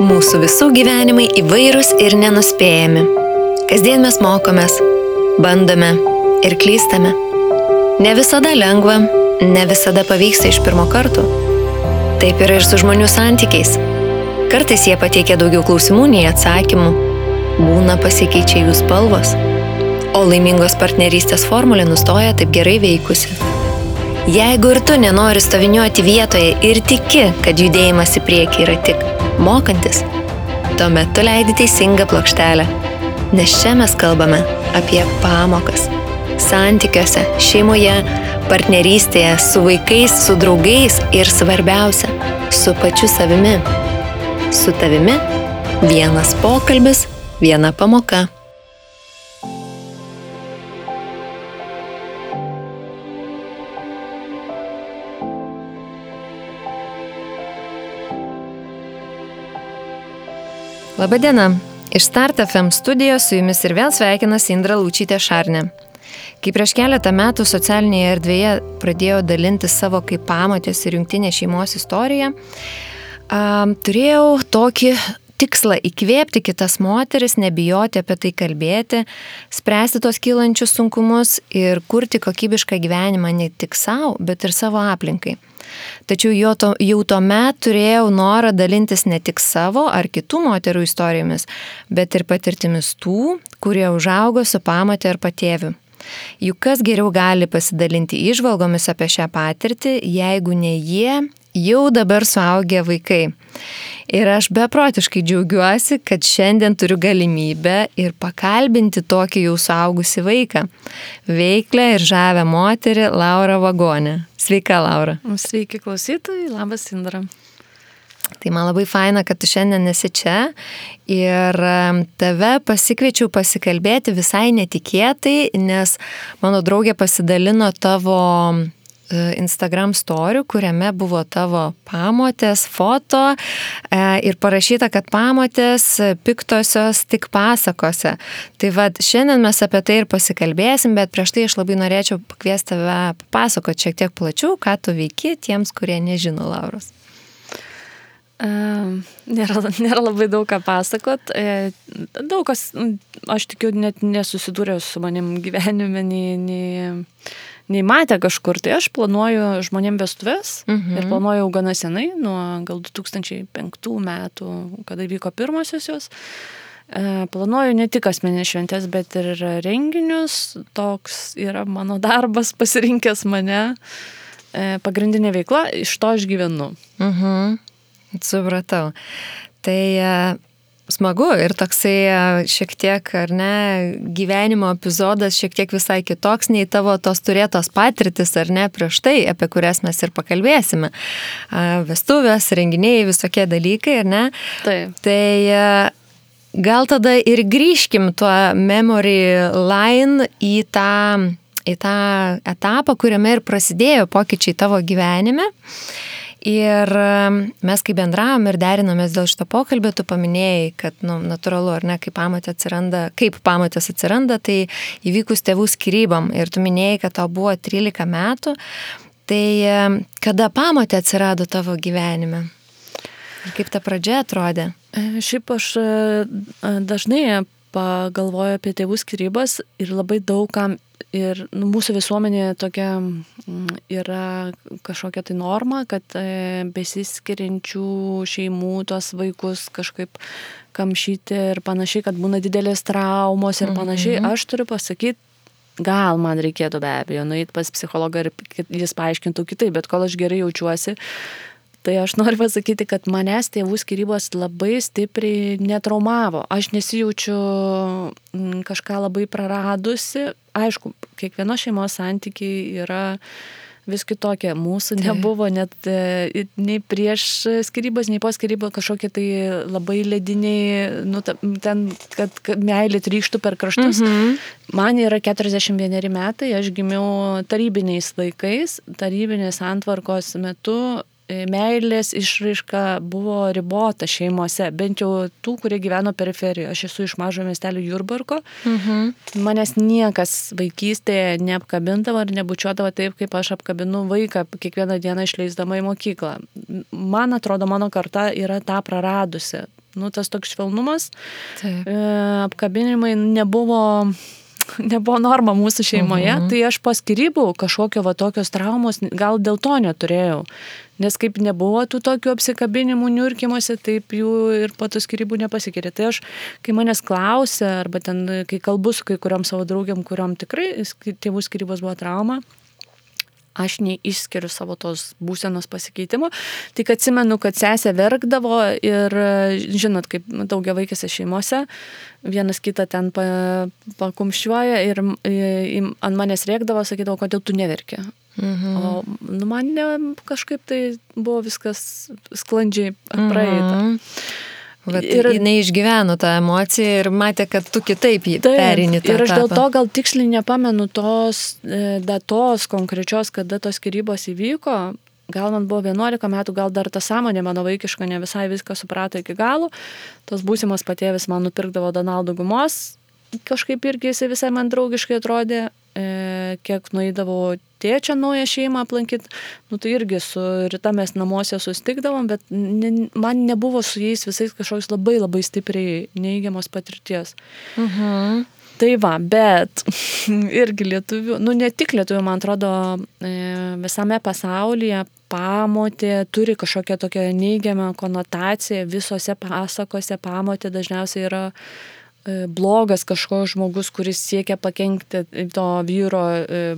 Mūsų visų gyvenimai įvairūs ir nenuspėjami. Kasdien mes mokomės, bandome ir klystame. Ne visada lengva, ne visada pavyksta iš pirmo karto. Taip yra ir su žmonių santykiais. Kartais jie pateikia daugiau klausimų nei atsakymų. Būna pasikeičia jų spalvos. O laimingos partnerystės formulė nustoja taip gerai veikusi. Jeigu ir tu nenori stoviniuoti vietoje ir tiki, kad judėjimas į priekį yra tik mokantis, tuomet tu leidi teisingą plokštelę. Nes čia mes kalbame apie pamokas. Santykiuose, šeimoje, partnerystėje, su vaikais, su draugais ir svarbiausia, su pačiu savimi. Su tavimi vienas pokalbis, viena pamoka. Labadiena, iš Start FM studijos su jumis ir vėl sveikinasi Indra Laučytė Šarnė. Kai prieš keletą metų socialinėje erdvėje pradėjau dalinti savo kaip pamotės ir jungtinės šeimos istoriją, turėjau tokį tikslą įkvėpti kitas moteris, nebijoti apie tai kalbėti, spręsti tos kylančius sunkumus ir kurti kokybišką gyvenimą ne tik savo, bet ir savo aplinkai. Tačiau jau tuomet turėjau norą dalintis ne tik savo ar kitų moterų istorijomis, bet ir patirtimis tų, kurie užaugo su pamotė ar patėviu. Juk kas geriau gali pasidalinti įžvalgomis apie šią patirtį, jeigu ne jie, jau dabar suaugę vaikai. Ir aš beprotiškai džiaugiuosi, kad šiandien turiu galimybę ir pakalbinti tokį jau suaugusį vaiką. Veiklę ir žavę moterį Laurą Vagonę. Sveika, Laura. Sveiki klausytojai, labas Indra. Tai man labai faina, kad tu šiandien esi čia ir tave pasikviečiau pasikalbėti visai netikėtai, nes mano draugė pasidalino tavo Instagram story, kuriame buvo tavo pamotės foto ir parašyta, kad pamotės piktosios tik pasakose. Tai vad, šiandien mes apie tai ir pasikalbėsim, bet prieš tai aš labai norėčiau pakviesti tave papasakoti šiek tiek plačiau, ką tu veiki tiems, kurie nežino Lauros. Nėra labai daug ką pasakot. Daug kas, aš tikiu, net nesusidūrė su manim gyvenime, nei matė kažkur. Tai aš planuoju žmonėm vestuves ir planuoju gana senai, nuo gal 2005 metų, kada vyko pirmosios jos. Planuoju ne tik asmeninės šventės, bet ir renginius. Toks yra mano darbas, pasirinkęs mane. Pagrindinė veikla, iš to aš gyvenu. Supratau. Tai smagu ir toksai šiek tiek, ar ne, gyvenimo epizodas šiek tiek visai kitoks nei tavo tos turėtos patirtis, ar ne, prieš tai, apie kurias mes ir pakalbėsime. Vestuvės, renginiai, visokie dalykai, ar ne? Taip. Tai gal tada ir grįžkim tuo memory line į tą etapą, kuriame ir prasidėjo pokyčiai tavo gyvenime. Ir mes kai bendravom ir derinomės dėl šito pokalbio, tu paminėjai, kad natūralu, ar ne, kaip pamotės atsiranda, tai įvykus tėvų skyrybom. Ir tu minėjai, kad tau buvo 13 metų. Tai kada pamotė atsirado tavo gyvenime? Ir kaip ta pradžia atrodė? Šiaip aš dažnai pagalvoju apie tėvų skyrybas ir labai daugam. Ir mūsų visuomenė tokia yra kažkokia tai norma, kad besiskiriančių šeimų tos vaikus kažkaip kamšyti ir panašiai, kad būna didelės traumos ir panašiai. Aš turiu pasakyti, gal man reikėtų be abejo nueiti pas psichologą ir jis paaiškintų kitaip, bet kol aš gerai jaučiuosi, tai aš noriu pasakyti, kad manęs tėvų skyrybos labai stipriai netraumavo. Aš nesijaučiu kažką labai praradusi. Aišku, kiekvieno šeimos santykiai yra vis kitokie. Mūsų nebuvo net nei prieš skyrybas, nei po skyrybų kažkokie tai labai lediniai, ten, kad meilė trykštų per kraštus. Man yra 41 metai, aš gimiau tarybiniais laikais, tarybinės santvarkos metu. Meilės išraiška buvo ribota šeimose, bent jau tų, kurie gyveno periferijoje. Aš esu iš mažo miestelio Jurbarko. Manęs niekas vaikystėje neapkabindavo ir nebučiuodavo taip, kaip aš apkabinu vaiką kiekvieną dieną išleisdama į mokyklą. Man atrodo, mano karta yra tą praradusi. tas toks švelnumas, apkabinimai nebuvo norma mūsų šeimoje, tai aš po skyrybų kažkokio tokios traumos gal dėl to neturėjau. Nes kaip nebuvo tų tokių apsikabinimų niurkimuose, taip jų ir po tų skyrybų nepasikeitė. Tai aš, kai manęs klausia, arba ten, kai kalbu su kai kuriom savo draugiam, kuriom tikrai tėvų skyrybos buvo trauma, aš neišskiriu savo tos būsenos pasikeitimo. Tik atsimenu, kad sesė verkdavo ir, žinot, kaip daugiavaikėse šeimose, vienas kitą ten pakumščiuoja ir ant manęs rėkdavo, sakydavo, kodėl tu neverki. O man kažkaip tai buvo viskas sklandžiai praeita. Ir jinai išgyveno tą emociją ir matė, kad tu kitaip perini tą etapą. Ir aš dėl to gal tiksliai nepamenu tos datos konkrečios, kada tos skyrybos įvyko. Gal man buvo 11 metų, gal dar ta sąmonė mano vaikiška ne visai viską suprato iki galo. Tos būsimos patėvis man nupirkdavo Donaldo gumos. Kažkaip irgi jisai visai man draugiškai atrodė. Kiek nueidavau tėčio naują šeimą aplankyti, tai irgi su Rita mes namuose sustikdavom, bet man nebuvo su jais visais kažkoks labai labai stipriai neigiamos patirties. Tai va, bet irgi lietuvių, ne tik lietuvių, man atrodo, visame pasaulyje pamotė turi kažkokią tokią neigiamą konotaciją, visose pasakose pamotė dažniausiai yra blogas kažkoks žmogus, kuris siekia pakenkti to vyro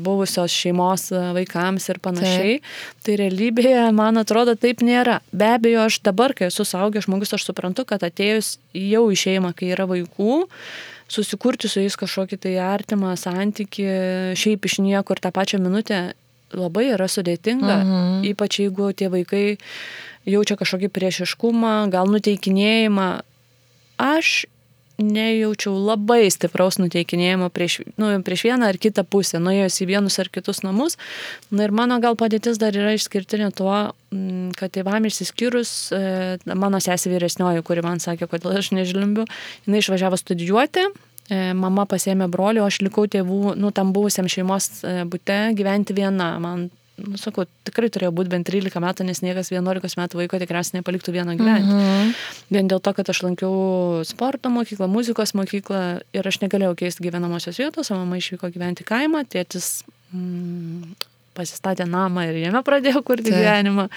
buvusios šeimos vaikams ir panašiai. Tai realybėje, man atrodo, taip nėra. Be abejo, aš dabar, kai esu suaugęs žmogus, aš suprantu, kad atėjus jau į šeimą, kai yra vaikų, susikurti su jais kažkokį tai artimą santykį, šiaip iš niekur tą pačią minutę labai yra sudėtinga, ypač jeigu tie vaikai jaučia kažkokį priešiškumą, gal nuteikinėjimą. Aš nejaučiau labai stipraus nuteikinėjimo prieš vieną ar kitą pusę, nuėjus į vienus ar kitus namus. Ir mano gal padėtis dar yra išskirtinė tuo, kad tėvam išsiskyrus, mano sesė vyresnioji, kuri man sakė, kodėl aš nežlimbiu, jinai išvažiavo studijuoti, mama pasiėmė brolį, o aš likau tėvų, tam buvusiam šeimos bute gyventi viena. Man sakau, tikrai turėjo būti bent 13 metų, nes niekas 11 metų vaiko tikriausiai nepaliktų vieno gyventi. Vien dėl to, kad aš lankiau sporto mokyklą, muzikos mokyklą ir aš negalėjau keisti gyvenamosios vietos, o mama išvyko gyventi kaimą, tėtis pasistatė namą ir jame pradėjo kurti gyvenimą.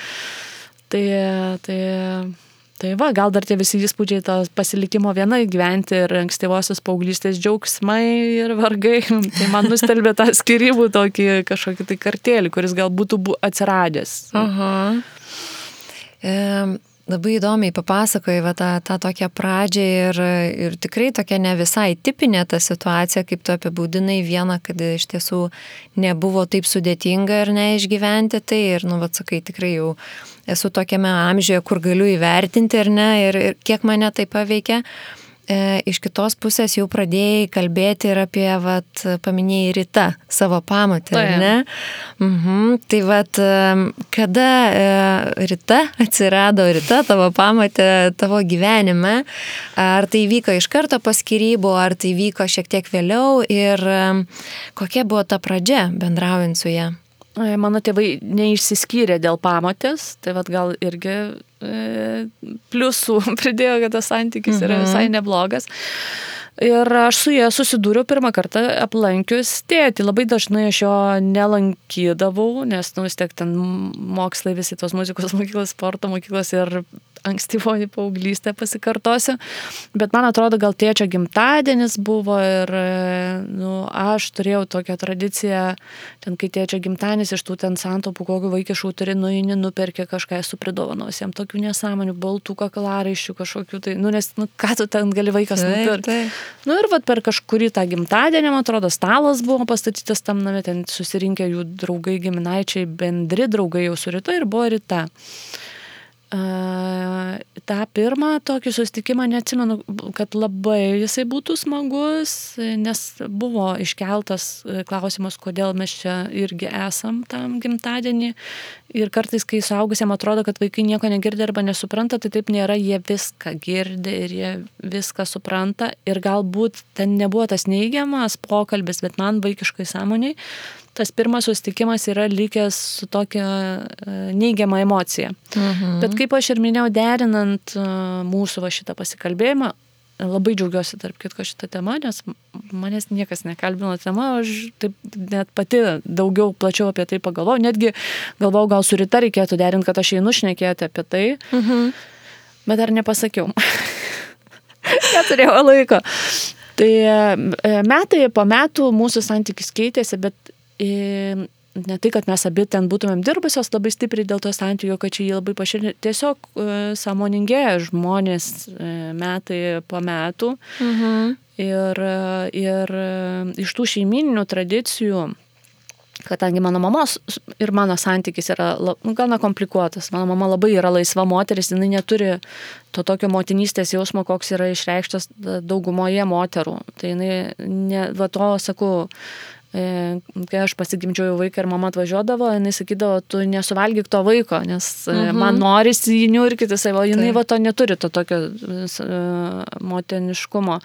Tai va, gal dar tie visi įspūdžiai to pasilikimo vienai gyventi ir ankstyvosios paauglystės džiaugsmai ir vargai. Tai man nustelbė tą skyrybų tokį kažkokį tai kartėlį, kuris gal būtų atsiradęs. Labai įdomiai papasakojai tą tokią pradžią ir tikrai tokia ne visai tipinė ta situacija, kaip tu apibūdinai vieną, kad iš tiesų nebuvo taip sudėtinga ir neišgyventi tai ir, sakai, tikrai jau esu tokiame amžiuje, kur galiu įvertinti ar ne ir kiek mane tai paveikia. Iš kitos pusės jau pradėjai kalbėti ir apie, paminėjai Rita, savo pamotę, ar ne? Tai kada Rita atsirado, tavo pamotė tavo gyvenime, ar tai vyko iš karto po skyrybų, ar tai vyko šiek tiek vėliau ir kokia buvo ta pradžia bendraujant su ja? Mano tėvai neišsiskyrė dėl pamotės, tai gal irgi pliusų pridėjo, kad tas santykis yra visai neblogas. Ir aš su jie susidūriau pirmą kartą aplankius tėtį. Labai dažnai aš jo nelankydavau, nes vis tiek ten mokslai visi tos muzikos mokyklos, sporto mokyklos ir ankstyvoji paauglystė pasikartosiu. Bet man atrodo, gal tėčio gimtadienis buvo ir aš turėjau tokią tradiciją, ten kai tėčio gimtadienis iš tų ten santaupų, kokių vaikiškų turi, nuperkė kažką, esu pridovanos jam tokių nesąmonių, baltų kaklaraiščių kažkokių, tai, nes ką tu ten gali vaikas nupirkti. Ir per kažkurį tą gimtadienį, man atrodo, stalas buvo pastatytas tam name, ten susirinkę jų draugai, giminaičiai, bendri draugai jau su Rita ir buvo Rita. tą pirmą tokį susitikimą neatsimenu, kad labai jisai būtų smagus, nes buvo iškeltas klausimas, kodėl mes čia irgi esam tam gimtadienį. Ir kartais, kai suaugusiam atrodo, kad vaikai nieko negirdi arba nesupranta, tai taip nėra, jie viską girdi ir jie viską supranta. Ir galbūt ten nebuvo tas neigiamas pokalbis, bet man vaikiškai sąmoniai tas pirmas susitikimas yra likęs su tokia neigiama emocija. Bet kaip aš ir minėjau, derinant mūsų šitą pasikalbėjimą, labai džiaugiuosi tarp kitko šitą temą, nes manęs niekas nekalbino tema, aš taip net pati daugiau plačiau apie tai pagalvojau, netgi galvojau, gal su Rita reikėtų derinti, kad aš einu šnekėti apie tai, bet dar nepasakiau. Neturėjau laiko. Tai metai po metų mūsų santykis keitėsi, bet ne tai, kad mes abi ten būtumėm dirbusios labai stipriai dėl to santykio, kad čia jį labai paširė. Tiesiog sąmoningėja žmonės metai po metų. Ir iš tų šeimininių tradicijų, kadangi mano mamos ir mano santykis yra gana komplikuotas. Mano mama labai yra laisva moteris, jinai neturi to tokio motinystės jausmo, koks yra išreikštas daugumoje moterų. Tai jinai, va to sakau, kai aš pasigimdžiau vaiką ir mama atvažiuodavo, jinai sakydavo, tu nesuvalgyk to vaiko, nes man norisi jį niurkyti, o jinai va to neturi, to tokio motiniškumo.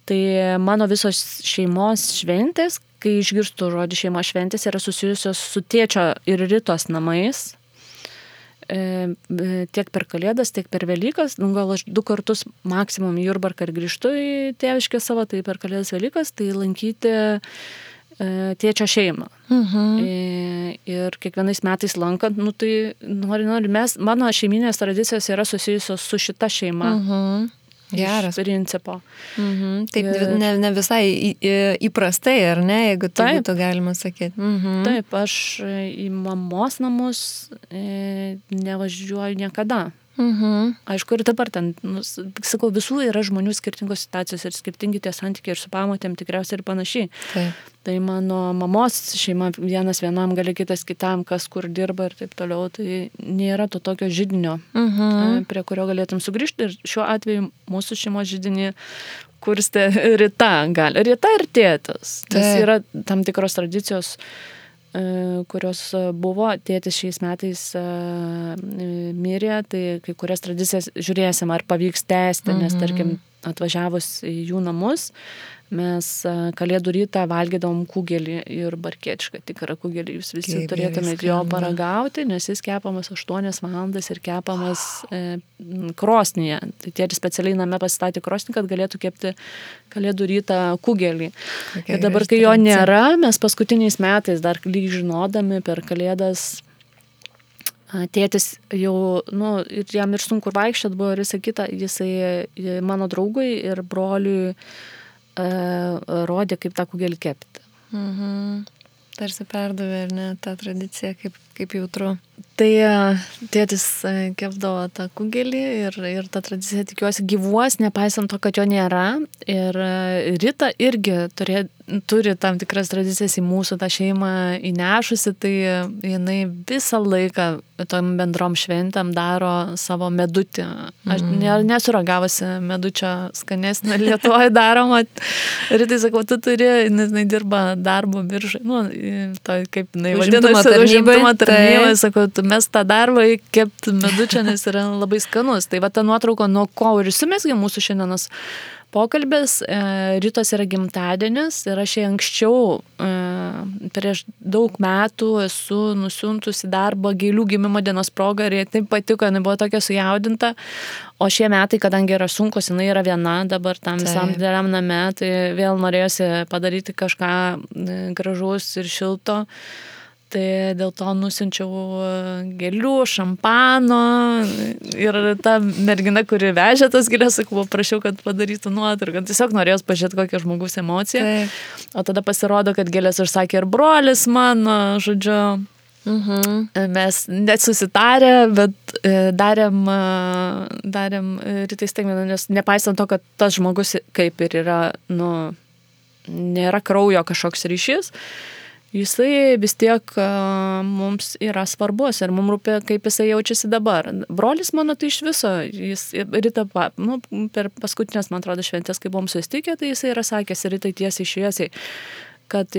Tai mano visos šeimos šventės, kai išgirstu žodį šeimos šventės, yra susijusios su tėčio ir Ritos namais. Tiek per Kalėdas, tiek per Velykas. Gal aš 2 kartus maksimum į Jurbarką ir grįžtu į tėviškę savo, tai per Kalėdas Velykas, tai lankyti tėčio šeimą. Ir kiekvienais metais lankant, tai nori, mano šeiminės tradicijos yra susijusios su šita šeima. Geras. Principo. Taip, ne visai įprastai, ar ne, jeigu tai būtų galima sakyti. Taip, aš į mamos namus nevažiuoju niekada. Aišku, ir dabar ten, sakau, visų yra žmonių skirtingos situacijos ir skirtingi tie santykiai ir su pamotėm tikriausiai ir panašiai. Taip. Tai mano mamos šeima vienas vienam, gali kitas kitam, kas kur dirba ir taip toliau, tai nėra to tokio židinio, prie kurio galėtum sugrįžti. Ir šiuo atveju mūsų šeimos židinį kurstė Rita ir tėtis. Tas yra tam tikros tradicijos, kurios buvo. Tėtis šiais metais mirė, tai kai kurias tradicijas žiūrėsim, ar pavyks tęsti, nes tarkim atvažiavus į jų namus, mes Kalėdų rytą valgydavom kugelį ir barkėčiką, tikrą kugelį, jūs visi turėtumėte jo paragauti, nes jis kepamas 8 valandas ir kepamas krosnyje. Tai tėtis specialiai name pasistatė krosnį, kad galėtų kepti Kalėdų rytą kugelį. Ir dabar, kai jo nėra, mes paskutiniais metais dar lyg žinodami per Kalėdas, tėtis jau, ir jam ir sunku vaikščiot buvo ir visą kitą, jisai mano draugui ir broliui rodė, kaip tą kugelį kepti. Tarsi perdavė, ar ne, tą tradiciją, kaip jautru. Tai tėtis kepdavo tą kugelį ir ta tradicija, tikiuosi, gyvuos, nepaisant to, kad jo nėra. Ir Rita irgi turi tam tikras tradicijas į mūsų tą šeimą įnešusi, tai jinai visą laiką tom bendrom šventėm daro savo medutį. Aš nesu ragavusi medučio skanesnio Lietuvoje daroma. Ritai sakau, tu turi, jinai dirba darbo biržai, kaip jinai vadinasi, užimtumo tarnybai, sakau, mes tą darbą kepti medučio, nes yra labai skanus. Tai va ta nuotrauka, nuo ko ir įsimesgė mūsų šiandienos pokalbis. Ritos yra gimtadienis ir aš anksčiau prieš daug metų esu nusiuntusi darbą gėlių gimimo dienos progą ir jai taip patiko, jinai buvo tokia sujaudinta. O šie metai, kadangi yra sunkus, jinai yra viena dabar tam visam dideliam name, tai vėl norėjosi padaryti kažką gražaus ir šilto. Tai dėl to nusiunčiau gėlių, šampano ir ta mergina, kuri vežė tas gėlės, sakau, prašiau, kad padarytų nuotrauką. Tiesiog norėjau pažiūrėti, kokia žmogus emocija. O tada pasirodo, kad gėlės užsakė ir brolis mano, žodžiu. Mes net susitarę, bet darėm Ritai staigmeną, nes nepaisant to, kad tas žmogus kaip ir yra, nėra kraujo kažkoks ryšys, jisai vis tiek mums yra svarbus ir mums rūpi, kaip jisai jaučiasi dabar. Brolis mano tai iš viso, jis Rita, per paskutinės, man atrodo, šventės, kai buvom susitikę, tai jisai yra sakęs Ritai tiesiai šviesiai, kad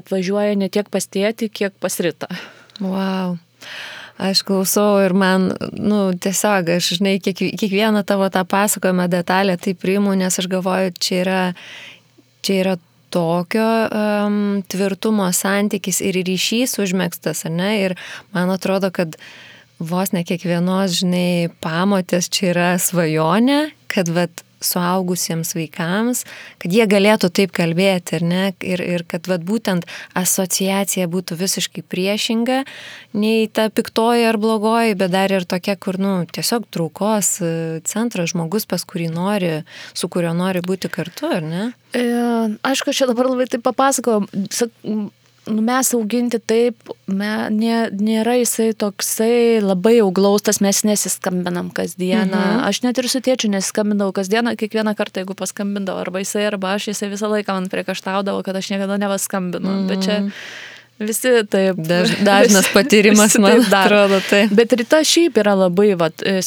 atvažiuoja ne tiek pas tėtį, kiek pas Ritą. Wow. Aš klausau ir man, tiesiog, aš, žinai, kiekvieną tavo tą pasakojimą detalę tai priimu, nes aš galvoju, čia yra tokio tvirtumo santykis ir ryšys užmėgstas, ar ne? Ir man atrodo, kad vos ne kiekvienos, žinai, pamotės čia yra svajonė, kad vat suaugusiems vaikams, kad jie galėtų taip kalbėti, ar ne? Ir kad vat būtent asociacija būtų visiškai priešinga, nei ta piktoji ar blogoji, bet dar ir tokia, kur, tiesiog traukos centras, žmogus, pas kurį nori, su kuriuo nori būti kartu, ar ne? Aišku, aš čia dabar labai taip papasakojau. Mes auginti taip, nėra jisai toksai labai jau glaustas, mes nesiskambinam kasdieną. Aš net ir su tėčiu nesiskambindavau kasdieną, kiekvieną kartą, jeigu paskambindavau, arba jisai visą laiką man priekaištaudavo, kad aš niekada nepaskambinu. Bet čia visi taip. Dažnas patyrimas, man atrodo, tai. Bet Rita šiaip yra labai,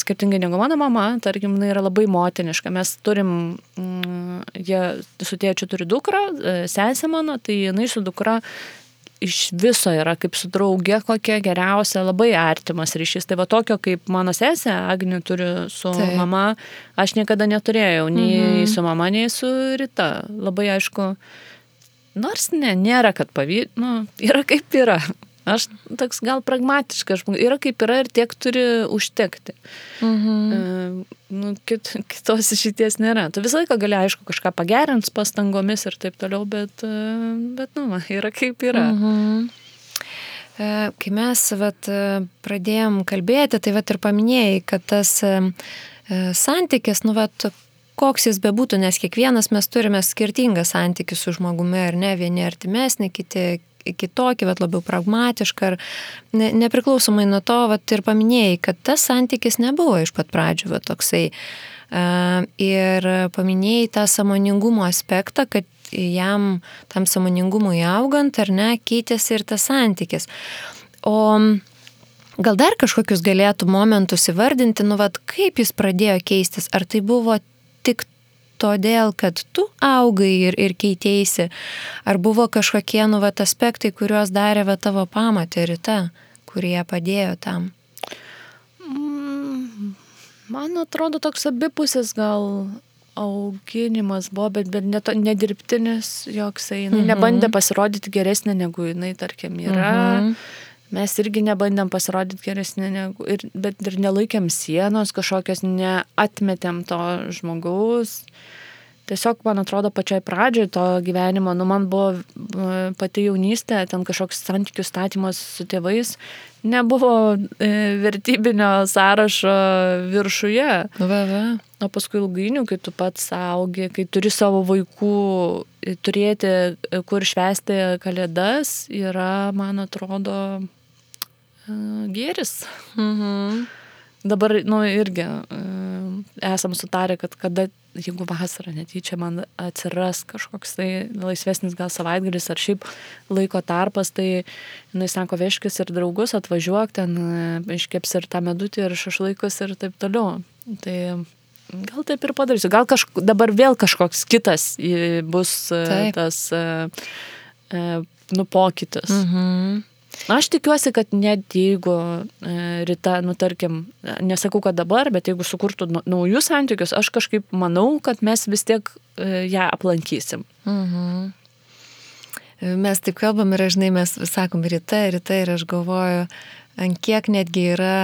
skirtingai negu mano mama, tarkim, jinai yra labai motiniška. Mes turim, jie su tėčiu turi dukrą, sesę mano, tai jinai su dukra iš viso yra kaip su drauge kokia geriausia, labai artimas ryšys. Tai tokio kaip mano sesė Agnė turi su mama, aš niekada neturėjau, nei su mama, nei su Rita. Labai aišku, nors nėra, kad yra kaip yra. Aš toks gal pragmatiškas, yra kaip yra ir tiek turi užtekti. Kitos išeities nėra. Tu visą laiką gali, aišku, kažką pagerinti pastangomis ir taip toliau, bet yra kaip yra. Kai mes pradėjom kalbėti, tai ir paminėjai, kad tas santykis, koks jis bebūtų, nes kiekvienas mes turime skirtingą santykį su žmogumi, ar ne, vieni artimesni, kiti kitokį, labiau pragmatišką, ar nepriklausomai nuo to, ir paminėjai, kad tas santykis nebuvo iš pat pradžių toksai. Ir paminėjai tą sąmoningumo aspektą, kad jam tam sąmoningumui augant, ar ne, keitėsi ir tas santykis. O gal dar kažkokius galėtų momentus įvardinti, kaip jis pradėjo keistis? Ar tai buvo tik todėl, kad tu augai ir keitėsi, ar buvo kažkokie aspektai, kuriuos darė tavo pamotė Rita, kurie padėjo tam? Man atrodo, toks abipusis gal auginimas buvo, bet nedirbtinis joksai. Jinai nebandė pasirodyti geresnė, negu jinai, tarkim, yra. Mes irgi nebandėm pasirodyti geresnė, bet ir nelaikėm sienos kažkokios, neatmetėm to žmogaus. Tiesiog, man atrodo, pačioj pradžioj to gyvenimo, man buvo pati jaunystė, ten kažkoks santykių statymas su tėvais, nebuvo vertybinio sąrašo viršuje. O paskui ilgainiui, kai tu pats augi, kai turi savo vaikų, turėti kur švęsti kalėdas, yra, man atrodo, gėris. Dabar, irgi esam sutarę, kad kada, jeigu vasarą netyčia man atsiras kažkoks tai laisvesnis gal savaitgalis ar šiaip laiko tarpas, tai jinai sako, vežkis ir draugus, atvažiuok, ten iškeps ir tą medutį ir šašlaikus ir taip toliau. Tai gal taip ir padarysiu. Gal dabar vėl kažkoks kitas bus tas pokytis. Aš tikiuosi, kad net jeigu Rita, tarkim, nesakau, kad dabar, bet jeigu sukurtų naujus santykius, aš kažkaip manau, kad mes vis tiek ją aplankysim. Mes taip kalbam ir, žinai, mes sakom Rita ir aš galvoju, ant kiek netgi yra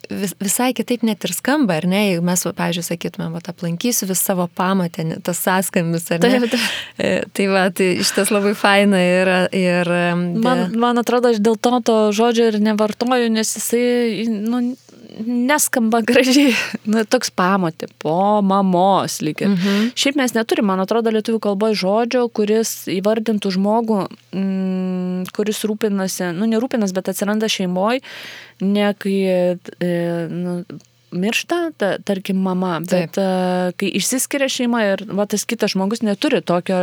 visai kitaip net ir skamba, ar ne? Jeigu mes, pavyzdžiui, sakytumėm, aplankysiu vis savo pamatę, tas sąskambis, ar ne? Tai šitas labai faina yra. Ir man atrodo, aš dėl to žodžio ir nevartoju, nes jisai, neskamba gražiai. Toks pamatė, po mamos lyg ir. Šiaip mes neturim, man atrodo, lietuvių kalboje žodžio, kuris įvardintų žmogų, kuris rūpinasi, nerūpinas, bet atsiranda šeimoje, ne kai miršta, tarkim, mama, bet kai išsiskiria šeima ir tas kitas žmogus neturi tokio,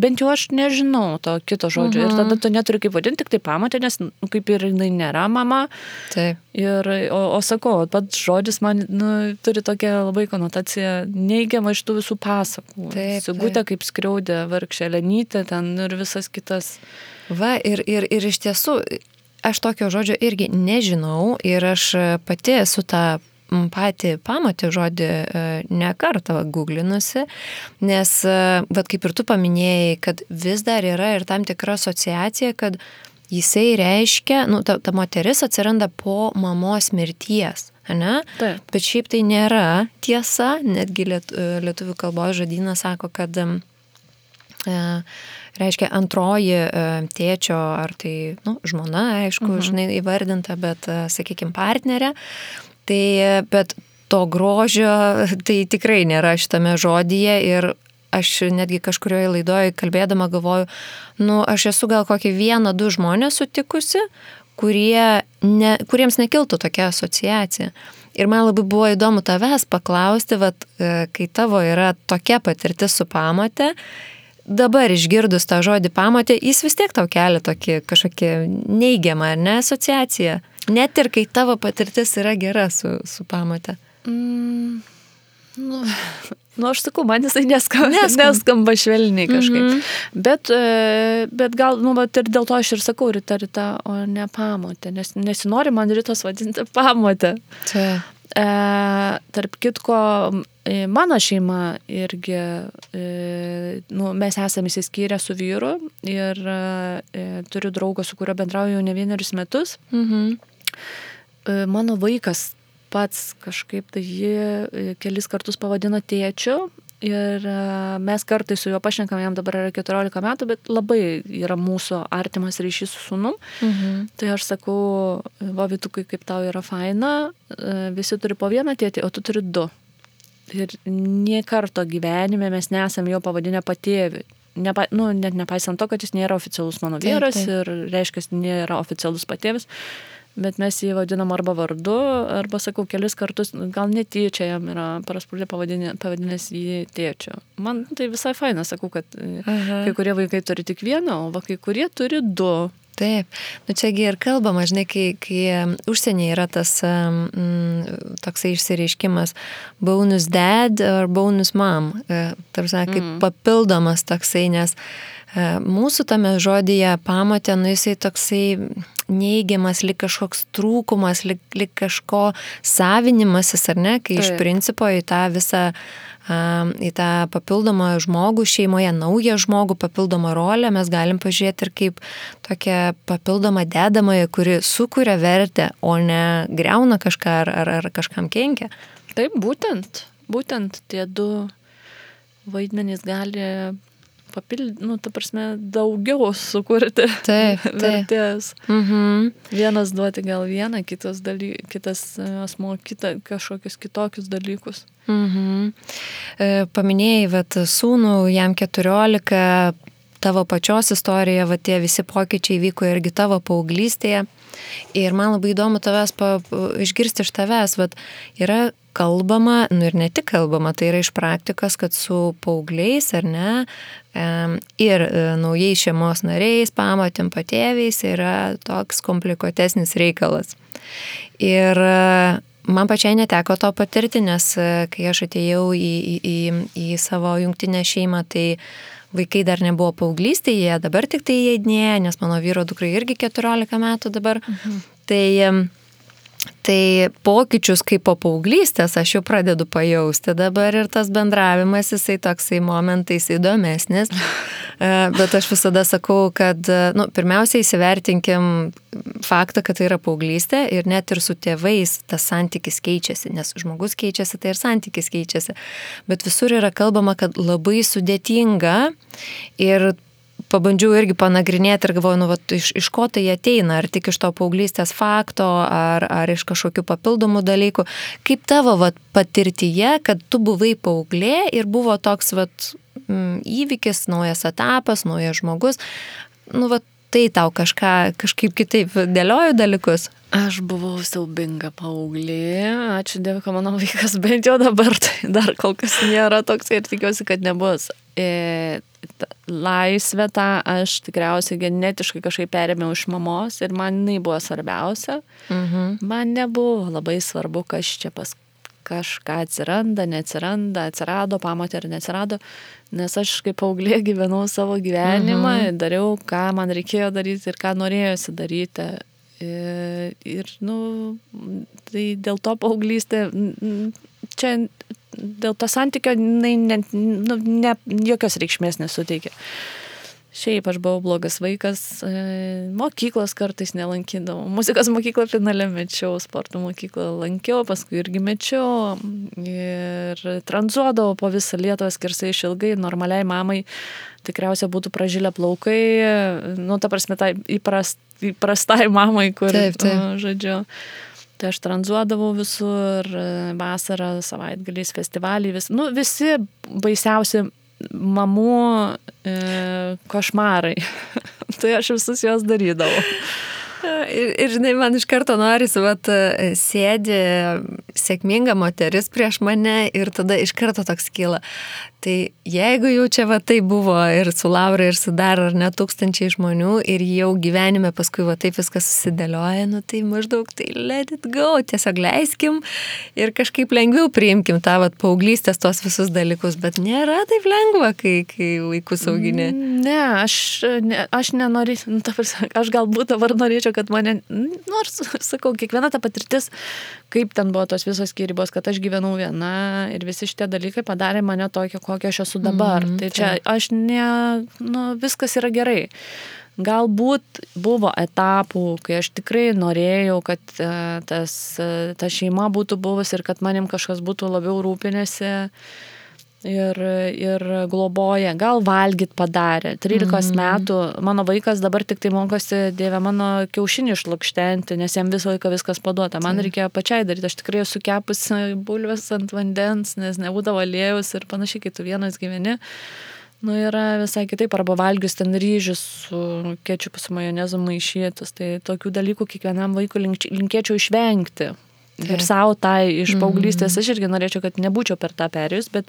bent jau aš nežinau to kito žodžio, ir tada tu neturi kaip vadinti, tik tai pamatė, nes kaip ir jinai nėra mama. Taip. O sakau, pats žodis man turi tokią labai konotaciją neigiamą iš tų visų pasakų. Sigutė kaip skriaudė, vargšė Lenytė ten ir visas kitas. Ir iš tiesų, aš tokio žodžio irgi nežinau ir aš pati esu tą patį pamatį žodį ne kartą googlinusi, nes, vat kaip ir tu paminėjai, kad vis dar yra ir tam tikra asociacija, kad jisai reiškia, ta moteris atsiranda po mamos mirties, ne? Taip. Bet šiaip tai nėra tiesa, netgi lietuvių kalbos žodynas sako, kad reiškia antroji tėčio, ar tai žmona, aišku, žinai, įvardinta, bet, sakykime, partnerė. Tai, bet to grožio tai tikrai nėra šitame žodyje ir aš netgi kažkurioje laidoje kalbėdama galvoju, aš esu gal kokį 1-2 žmonės sutikusi, kuriems nekiltų tokia asociacija. Ir man labai buvo įdomu tavęs paklausti, kai tavo yra tokia patirtis su pamate, dabar išgirdus tą žodį pamatė, jis vis tiek tau kelia tokį kažkokį neigiamą, ar ne, asociaciją. Net ir kai tavo patirtis yra gera su pamate. Aš sakau, man jisai neskamba švelniai kažkaip. Bet gal, ir dėl to aš ir sakau Rita, o ne pamotė, nes nesinori man Ritos vadinti pamotę. Tarp kitko, mano šeima irgi, mes esame įsiskyrę su vyru ir turiu draugą, su kuriuo bendrauju jau ne 1 metus. Mano vaikas pats kažkaip tai jį kelis kartus pavadino tėčiu ir mes kartais su juo pašnekam, jam dabar yra 14 metų, bet labai yra mūsų artimas ryšys su sūnum. Tai aš sakau, Vytukai, kaip tau yra faina, visi turi po vieną tėtį, o tu turi 2. Ir nie karto gyvenime mes nesam jo pavadinę patėvį. Net nepaisant to, kad jis nėra oficialus mano vyras ir reiškia, jis nėra oficialus patėvis. Bet mes jį vadinam arba vardu, arba, sakau, kelis kartus, gal netyčia jam yra prasprūdė pavadinęs jį tėčiu. Man tai visai faina, sakau, kad kai kurie vaikai turi tik vieną, o kai kurie turi 2. Taip, čiagi ir kalbama, žinai, kai užsienyje yra tas toksai išsireiškimas bonus dad ar bonus mom, tarsi kaip papildomas toksai, nes mūsų tame žodyje pamatė, jisai toksai neigiamas, lyg kažkoks trūkumas, lyg kažko savinimasis, ar ne, kai iš principo į tą visą, į tą papildomą žmogų šeimoje, naują žmogų, papildomą rolę mes galim pažiūrėti ir kaip tokią papildomą dedamąją, kuri sukuria vertę, o ne griauna kažką ar kažkam kenkia. Taip, būtent tie 2 vaidmenys gali ta prasme, daugiau sukurti vertės. Vienas duoti gal vieną, kitas asmo kažkokius kitokius dalykus. Paminėjai, sūnų, jam 14, tavo pačios istorija, tie visi pokyčiai vyko irgi tavo paauglystėje. Ir man labai įdomu tavęs išgirsti iš tavęs, yra kalbama, ir ne tik kalbama, tai yra iš praktikos, kad su paaugliais, ar ne, ir naujais šeimos nariais, pamatėm patėviais, yra toks komplikuotesnis reikalas. Ir man pačiai neteko to patirti, nes kai aš atėjau į savo jungtinę šeimą, tai vaikai dar nebuvo paauglystėje, dabar tik tai įeidinėja, nes mano vyro dukrai irgi 14 metų dabar. Tai pokyčius kaip po paauglystės aš jau pradedu pajausti dabar ir tas bendravimas, jisai toksai momentais įdomesnis. Bet aš visada sakau, kad pirmiausia įsivertinkim faktą, kad tai yra paauglystė ir net ir su tėvais tas santykis keičiasi, nes žmogus keičiasi, tai ir santykis keičiasi. Bet visur yra kalbama, kad labai sudėtinga ir pabandžiau irgi panagrinėti ir galvoju, iš ko tai ateina, ar tik iš to paauglystės fakto, ar iš kažkokių papildomų dalykų. Kaip tavo patirtyje, kad tu buvai paauglė ir buvo toks įvykis, naujas etapas, naujas žmogus, tai tau kažkaip kitaip dėlioju dalykus? Aš buvau siaubinga paauglė, ačiū Dievui, kad mano vaikas bent jau dabar, tai dar kol kas nėra toks ir tikiuosi, kad nebus. Laisvę tą aš tikriausiai genetiškai kažkaip perėmiau iš mamos ir man jinai buvo svarbiausia. Man nebuvo labai svarbu, kas čia pas kažką atsiranda, neatsiranda, atsirado, pamatė ar neatsirado, nes aš kaip paauglė gyvenau savo gyvenimą, dariau, ką man reikėjo daryti ir ką norėjosi daryti. Ir, tai dėl to paauglystė, čia dėl to santykio jokios reikšmės nesuteikia. Šiaip aš buvau blogas vaikas, mokyklos kartais nelankydavau, muzikos mokyklą finale mečiau, sporto mokyklą lankiau, paskui irgi mečiau ir tranzuodavau po visą Lietuvą skersai išilgai, normaliai mamai tikriausiai būtų pražilę plaukai, ta prasme, tai įprastai mamai, kur, žodžiu. Tai aš tranzuodavau visur, vasarą, savaitgaliais, festivaliai, visi baisiausi mamų košmarai. Tai aš visus juos darydavau. Ir žinai, man iš karto norisi, sėdi sėkminga moteris prieš mane ir tada iš karto toks kyla. Tai jeigu jau čia tai buvo ir su Laura, ir su dar ar ne tūkstančiai žmonių ir jau gyvenime paskui taip viskas susidėlioja, tai maždaug tai let it go, tiesiog leiskim ir kažkaip lengviau priimkim tą paauglystės tos visus dalykus, bet nėra taip lengva, kai vaikus augini. Ne, aš nenorėčiau, aš galbūt dabar norėčiau, kad mane, nors, sakau, kiekviena ta patirtis, kaip ten buvo tos visos skyrybos, kad aš gyvenau viena ir visi šitie dalykai padarė mane tokią, kokia aš esu dabar. Tai čia aš viskas yra gerai. Galbūt buvo etapų, kai aš tikrai norėjau, kad ta šeima būtų buvus ir kad manim kažkas būtų labiau rūpinėsi ir globoja. Gal valgyt padarė. 13 metų mano vaikas dabar tik tai mokosi, Dieve, mano kiaušinį išlukštenti, nes jam visą laiką viskas paduota. Man reikėjo pačiai daryti. Aš tikrai esu kepusi bulves ant vandens, nes nebūdavo aliejus ir panašiai, kai tu vienas gyveni. Yra visai kitaip, arba valgius ten ryžius su kečupu su majonezu maišytus. Tai tokių dalykų kiekvienam vaikui linkėčiau išvengti. Ir savo iš paauglystės aš irgi norėčiau, kad nebūčiau per tą perėjus, bet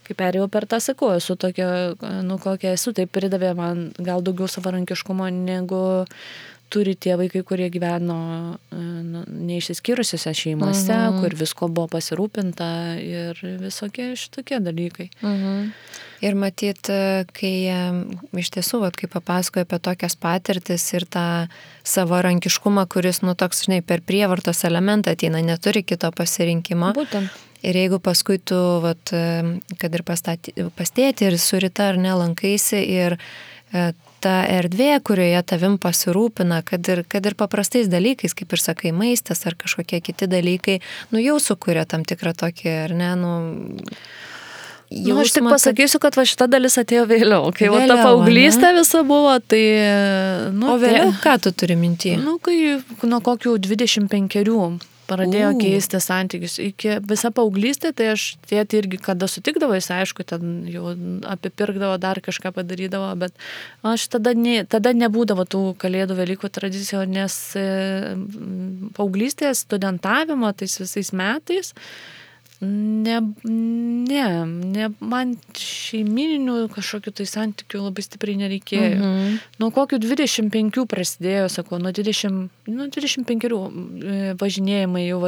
kai perėjau per tą, sakau, esu tokia, kokia esu, tai pridavė man gal daugiau savarankiškumo, negu turi tie vaikai, kurie gyveno neišsiskyrusiuose šeimose, kur visko buvo pasirūpinta ir visokie šitokie dalykai. Ir matyt, kai iš tiesų, kai papasakoju apie tokias patirtis ir tą savarankiškumą, kuris, toks, žinai, per prievartos elementą ateina, neturi kito pasirinkimo. Būtent. Ir jeigu paskui tu, kad ir pastėti ir su Rita ar nelankaisi ir ta erdvė, kurioje tavim pasirūpina, kad ir paprastais dalykais, kaip ir sakai, maistas ar kažkokie kiti dalykai, jau sukuria tam tikrą tokį, ar ne, aš tik pasakysiu, kad šita dalis atėjo vėliau. Kai ta paauglystė visa buvo, tai... O vėliau, ką tu turi minty? Kai nuo kokių 25 pradėjo keisti santykius. Iki visą paauglystę, tai aš tėtį irgi, kada sutikdavo, jis aišku, ten jau apipirkdavo, dar kažką padarydavo, bet aš tada nebūdavo tų kalėdų Velykų tradicijų, nes paauglystės studentavimo tais visais metais man šeimininių kažkokių tai santykių labai stipriai nereikėjo. Nuo kokių 25 prasidėjo, sakau, nuo 25 važinėjimai jau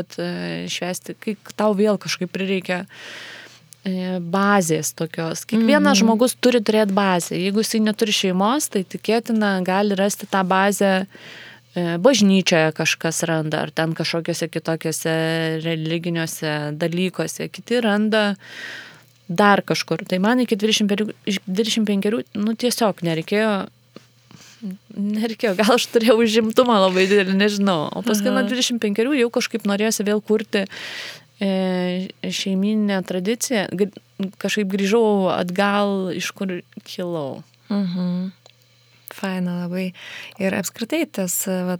švęsti, kai tau vėl kažkaip prireikia bazės tokios. Kiekvienas žmogus turi turėti bazę. Jeigu jisai neturi šeimos, tai tikėtina gali rasti tą bazę bažnyčioje kažkas randa, ar ten kažkokiuose kitokiuose religiniuose dalykuose, kiti randa dar kažkur. Tai man iki 25 tiesiog nereikėjo, gal aš turėjau užimtumą labai didelį, nežinau. O paskui nuo 25 jau kažkaip norėjosi vėl kurti šeiminę tradiciją. Kažkaip grįžau atgal, iš kur kilau. Faina labai. Ir apskritai tas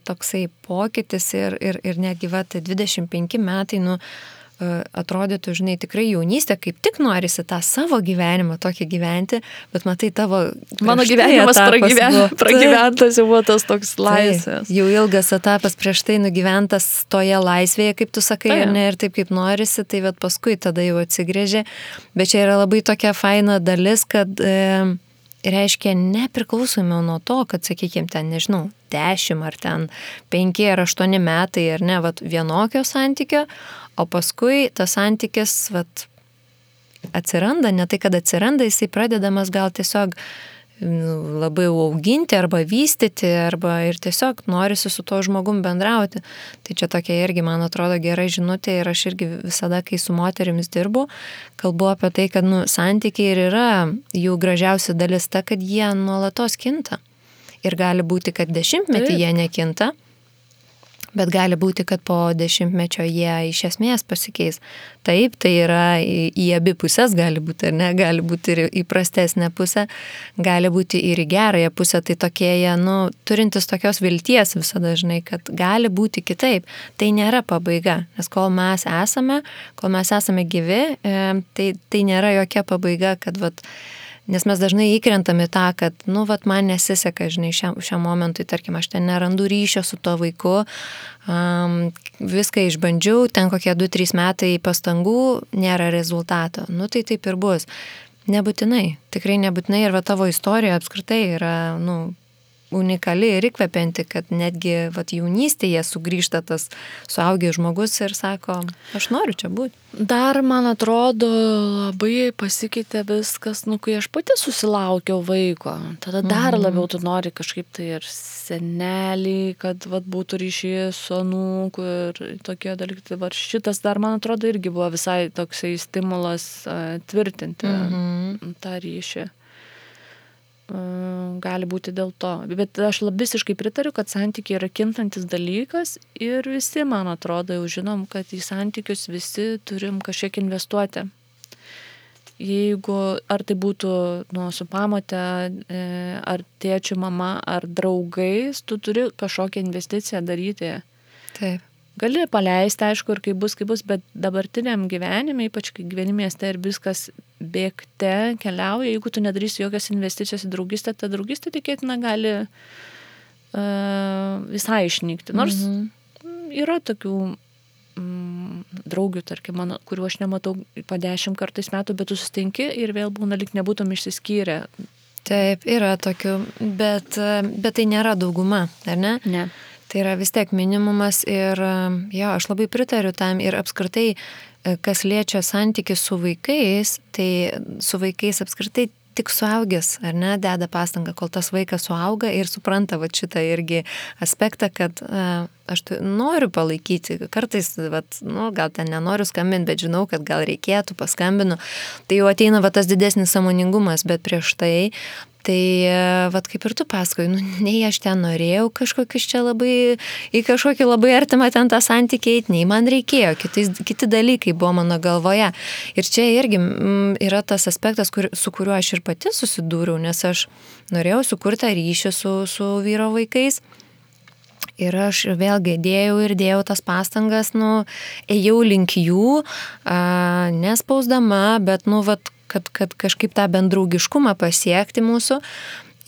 toksai pokytis ir netgi 25 metai, atrodytų, žinai, tikrai jaunystė, kaip tik norisi tą savo gyvenimą tokį gyventi, bet matai tavo... Mano gyvenimas pragyventas jau buvo tas toks laisvės. Jau ilgas etapas prieš tai nugyventas toje laisvėje, kaip tu sakai, ir taip kaip norisi, tai paskui tada jau atsigrėžė. Bet čia yra labai tokia faina dalis, kad... reiškia nepriklausomai nuo to, kad, sakykime, ten, nežinau, 10 ar ten 5 ar 8 metai ar ne, vienokio santykio, o paskui tas santykis, atsiranda, ne tai, kad atsiranda, jisai pradedamas gal tiesiog labai auginti arba vystyti, arba ir tiesiog norisi su tuo žmogum bendrauti. Tai čia tokia irgi, man atrodo, gera žinutė ir aš irgi visada, kai su moterimis dirbu, kalbu apie tai, kad santykiai ir yra jų gražiausia dalis ta, kad jie nuolatos kinta. Ir gali būti, kad 10-metį jie nekinta, bet gali būti, kad po 10-mečio jie iš esmės pasikeis. Taip, tai yra į abi pusės gali būti, ar ne, gali būti ir į prastesnę pusę, gali būti ir į gerąją pusę, tai tokie jie, turintis tokios vilties visada, žinai, kad gali būti kitaip. Tai nėra pabaiga, nes kol mes esame gyvi, tai nėra jokia pabaiga, kad nes mes dažnai įkrentam į tą, kad, man nesiseka, žinai, šiam momentui, tarkim, aš ten nerandu ryšio su to vaiku, viską išbandžiau, ten kokie 2-3 metai pastangų, nėra rezultato. Tai taip ir bus. Nebūtinai, tikrai nebūtinai, ir tavo istorija apskritai yra, unikali ir įkvepianti, kad netgi jaunystėje sugrįžta tas suaugęs žmogus ir sako, aš noriu čia būti. Dar, man atrodo, labai pasikeitė viskas, kai aš pati susilaukiau vaiko. Tada dar labiau tu nori kažkaip tai ir senelį, kad būtų ryšys su anūku ir tokie dalykai. Tai šitas dar, man atrodo, irgi buvo visai toksai stimulas tvirtinti tą ryšį. Gali būti dėl to. Bet aš visiškai pritariu, kad santykiai yra kintantis dalykas ir visi, man atrodo, jau žinom, kad į santykius visi turim kažkiek investuoti. Jeigu, ar tai būtų su pamote, ar tėčiu, mama, ar draugais, tu turi kažkokią investiciją daryti. Taip. Gali paleisti, aišku, ir kaip bus, bet dabartiniam gyvenime, ypač kai gyveni mieste ir viskas bėgte keliauja, jeigu tu nedarysi jokios investicijos į draugystę, ta draugystė tikėtina gali visai išnykti. Nors yra tokių draugių, tarkim, mano, kuriuo aš nematau po 10 kartais metų, bet tu susitinki ir vėl būna lyg nebūtum išsiskyrę. Taip, yra tokių, bet tai nėra dauguma, ar ne? Ne. Tai yra vis tiek minimumas ir aš labai pritariu tam ir apskritai, kas liečia santykių su vaikais, tai su vaikais apskritai tik suaugęs, ar ne, deda pastangą, kol tas vaikas suauga ir supranta šitą irgi aspektą, kad aš noriu palaikyti, kartais, gal ten nenoriu skambinti, bet žinau, kad gal reikėtų, paskambinu, tai jau ateina tas didesnis sąmoningumas, bet prieš tai kaip ir tu pasakoji, nei aš ten norėjau kažkokius čia labai, į kažkokį labai artimą ten tą santykį eiti, nei man reikėjo, kiti dalykai buvo mano galvoje. Ir čia irgi yra tas aspektas, su kuriuo aš ir pati susidūriau, nes aš norėjau sukurti ryšį su vyro vaikais. Ir aš vėlgi dėjau tas pastangas, ėjau link jų, nespausdama, bet, kad kažkaip tą bendraugiškumą pasiekti mūsų.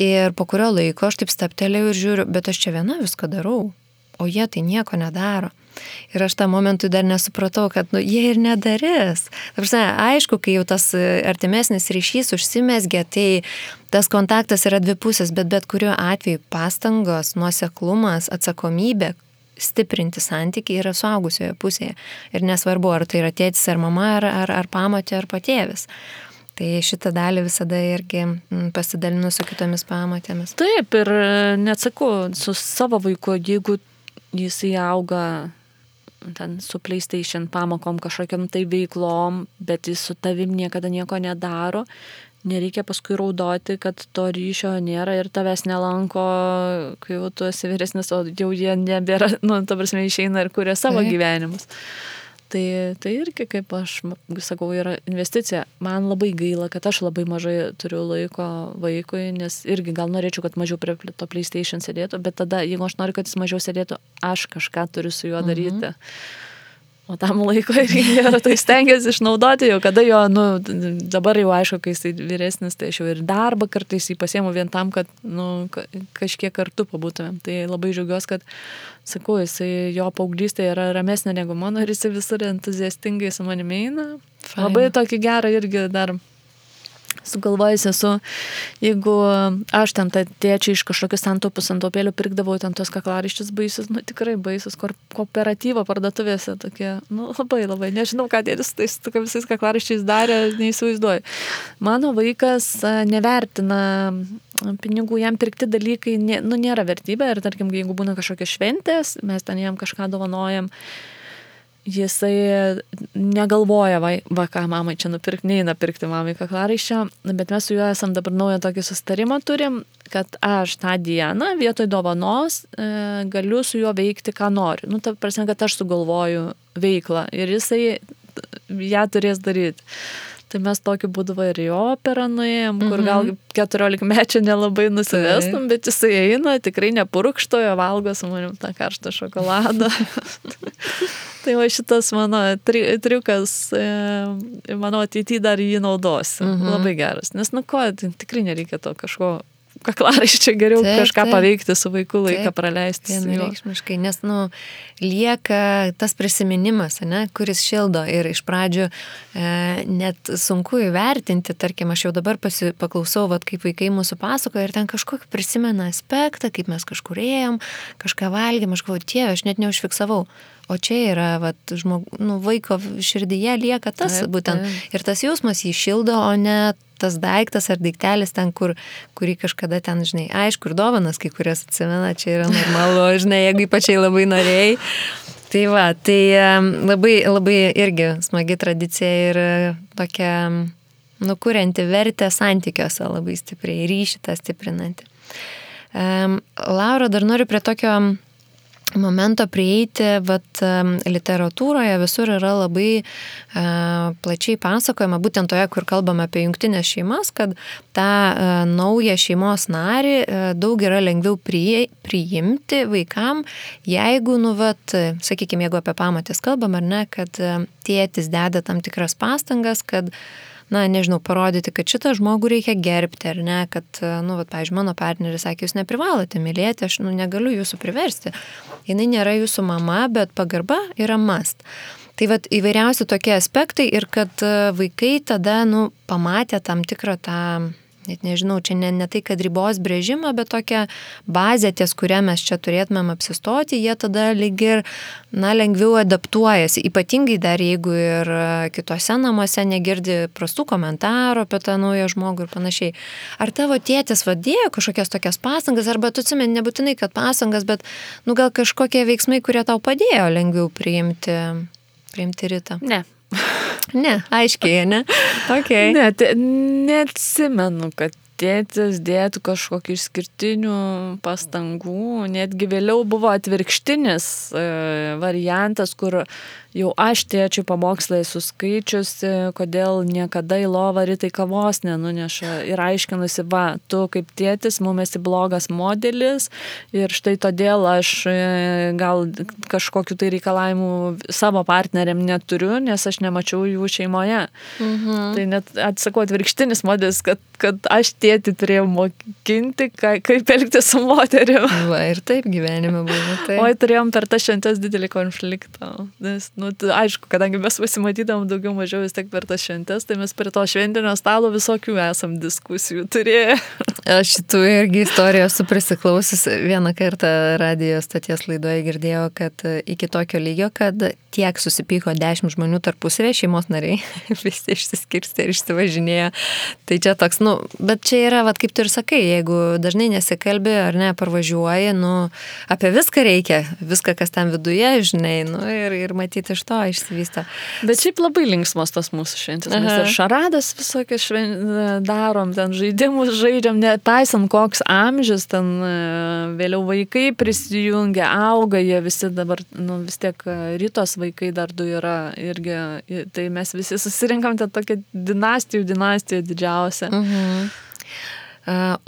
Ir po kurio laiko aš taip staptelėjau ir žiūriu, bet aš čia viena viską darau, o jie tai nieko nedaro. Ir aš tą momentui dar nesupratau, kad jie ir nedarys. Aišku, kai jau tas artimesnis ryšys užsimezgė, tai tas kontaktas yra dvipusės, bet kuriuo atveju pastangos, nuoseklumas, atsakomybė stiprinti santykiai yra suaugusioje pusėje. Ir nesvarbu, ar tai yra tėtis, ar mama, ar pamotė, ar patėvis. Tai šitą dalį visada irgi pasidalinu su kitomis pamotėmis. Taip, ir neatsakau, su savo vaiku, jeigu jisai auga ten su PlayStation pamokom kažkokiam tai veiklom, bet jis su tavim niekada nieko nedaro, nereikia paskui raudoti, kad to ryšio nėra ir tavęs nelanko, kai jau tu esi vyresnis, o jau jie nebėra, ta prasme, išeina ir kuria savo gyvenimus. Tai irgi, kaip aš sakau, yra investicija. Man labai gaila, kad aš labai mažai turiu laiko vaikui, nes irgi gal norėčiau, kad mažiau prie to PlayStation sėdėtų, bet tada, jeigu aš noriu, kad jis mažiau sėdėtų, aš kažką turiu su juo daryti. O tam laiko irgi tai stengiasi išnaudoti jau, kada jo, dabar jau aišku, kai jis vyresnis, tai aš jau ir darbą kartais jį pasiemu vien tam, kad kažkiek kartu pabūtumėm. Tai labai džiaugiuosi, kad, sakau, jo paauglystė yra ramesnė negu mano ir jis visur entuziastingai su manimi eina. Labai tokį gerą irgi dar sugalvojus esu, jeigu aš ten tą tėčią iš kažkokius santaupėlių pirkdavau ten tos kaklaraiščius baisius, tikrai baisius, kooperatyvo parduotuvėse tokie, labai, nežinau, ką tėtis tais visais kaklaraiščiais darė, neįsivaizduoju. Mano vaikas nevertina pinigų, jam pirkti dalykai nėra vertybė ir tarkim, jeigu būna kažkokios šventės, mes ten jam kažką dovanojam, jisai negalvoja, ką mamai čia nupirkti, neina pirkti mamai kaklaraiščio, bet mes su juo esam dabar naują tokį susitarimą turim, kad aš tą dieną vietoj dovanos galiu su juo veikti, ką noriu. Ta prasme, kad aš sugalvoju veiklą ir jisai ją turės daryti. Tai mes tokiu būdu ir į operą nuėjom, kur gal 14 mečių nelabai nusivestum, bet jisai eina, tikrai nepurkštojo, valgo su manim tą karštą šokoladą. Tai va šitas mano triukas, mano ateityje dar jį naudosiu. Labai geras. Nes tikrai nereikia to kažko kaklaraiščio, geriau kažką paveikti su vaiku, laiką praleisti. Vienareikšmiškai, nes lieka tas prisiminimas, kuris šildo ir iš pradžių net sunku įvertinti, tarkim, aš jau dabar paklausau, kaip vaikai mūsų pasakoja ir ten kažkokį prisimena aspektą, kaip mes kažkur ėjom, kažką valgėm, aš galvoju, Dieve, aš net neužfiksavau. O čia yra, vaiko širdyje lieka tas būtent. Ir tas jausmas jį šildo, o ne tas daiktas ar daiktelis ten, kurį kažkada ten, žinai, aišku, ir dovanas kai kurias atsimena, čia yra normalu, žinai, jeigu ypačiai labai norėjai. Tai labai, labai irgi smagi tradicija ir tokia, kurianti vertę santykiuose labai stipriai, ryšį tą stiprinanti. Laura, dar noriu prie tokio momento prieiti, literatūroje visur yra labai plačiai pasakojama, būtent toje, kur kalbame apie jungtinės šeimas, kad tą naują šeimos narį daug yra lengviau priimti vaikam, jeigu, sakykime, jeigu apie pamotės kalbam, ar ne, kad tėtis deda tam tikras pastangas, kad parodyti, kad šitą žmogų reikia gerbti, ar ne, kad, pavyzdžiui, mano partneris sakė, jūs neprivalote mylėti, aš negaliu jūsų priversti. Jinai nėra jūsų mama, bet pagarba yra must. Tai įvairiausi tokie aspektai ir kad vaikai tada, pamatė tam tikrą tą, net nežinau, čia ne tai, kad ribos brėžimą, bet tokią bazę, ties kurią mes čia turėtumėm apsistoti, jie tada lyg ir, lengviau adaptuojasi, ypatingai dar jeigu ir kitose namuose negirdi prastų komentarų apie tą naują žmogų ir panašiai. Ar tavo tėtis dėjo kažkokias tokias pastangas, arba tu atsimeni, nebūtinai, kad pastangas, bet, gal kažkokie veiksmai, kurie tau padėjo lengviau priimti Ritą? Ne, aiškiai, ne? Okay. Neatsimenu, kad tėtis dėtų kažkokių išskirtinių pastangų, netgi vėliau buvo atvirkštinis variantas, kur jau aš tėčiui pamokslai suskaičiusi, kodėl niekada į lovą Ritai kavos nenuneša ir aiškinusi, tu kaip tėtis mum esi blogas modelis ir štai todėl aš gal kažkokiu tai reikalavimu savo partneriam neturiu, nes aš nemačiau jų šeimoje. Tai net atsakau atvirkštinis modelis, kad aš tėtį turėjau mokinti, kaip elgtis su moterim. Ir taip gyvenime buvo. Taip. Oi, turėjom per tą šventes didelį konfliktą. Nes, aišku, kadangi mes pasimatydavom daugiau mažiau vis tiek per tas šventes, tai mes prie to šventinio stalo visokių esam diskusijų turėję. Aš šitų irgi istorijų esu prisiklausius. Vieną kartą radijo stoties laidoje girdėjau, kad iki tokio lygio, kad tiek susipyko 10 žmonių tarpusavėje, šeimos nariai, visi išsiskirstė ir išsivažinėjo. Tai čia toks, bet čia yra, kaip tu ir sakai, jeigu dažnai nesikalbi ar ne, parvažiuoji, apie viską reikia, viską, kas ten viduje, žinai, ir matyti iš to išsivysto. Bet šiaip labai linksmos tas mūsų šventės. Mes ir šaradas visokias darom, ten žaidimus žaidžiam, nepaisant koks amžius, ten vėliau vaikai prisijungia, auga, jie visi dabar, vis tiek Ritos vaikai dar 2 yra irgi, tai mes visi susirinkam tą tokią dinastijų didžiausią.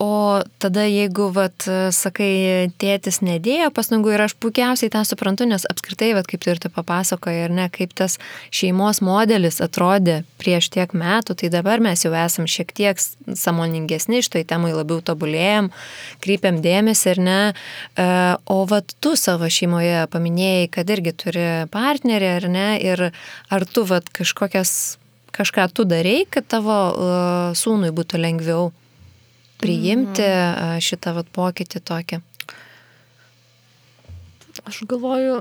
O tada jeigu, sakai, tėtis nedėjo pastangų ir aš puikiausiai tą suprantu, nes apskritai, kaip tu ir tu papasakoji, ar ne, kaip tas šeimos modelis atrodė prieš tiek metų, tai dabar mes jau esam šiek tiek sąmoningesni, šitoj temai labiau tobulėjam, kreipiam dėmesį, ar ne. O tu savo šeimoje paminėjai, kad irgi turi partnerį, ar ne, ir ar tu kažką tu darei, kad tavo sūnui būtų lengviau priimti šitą pokytį tokį? Aš galvoju,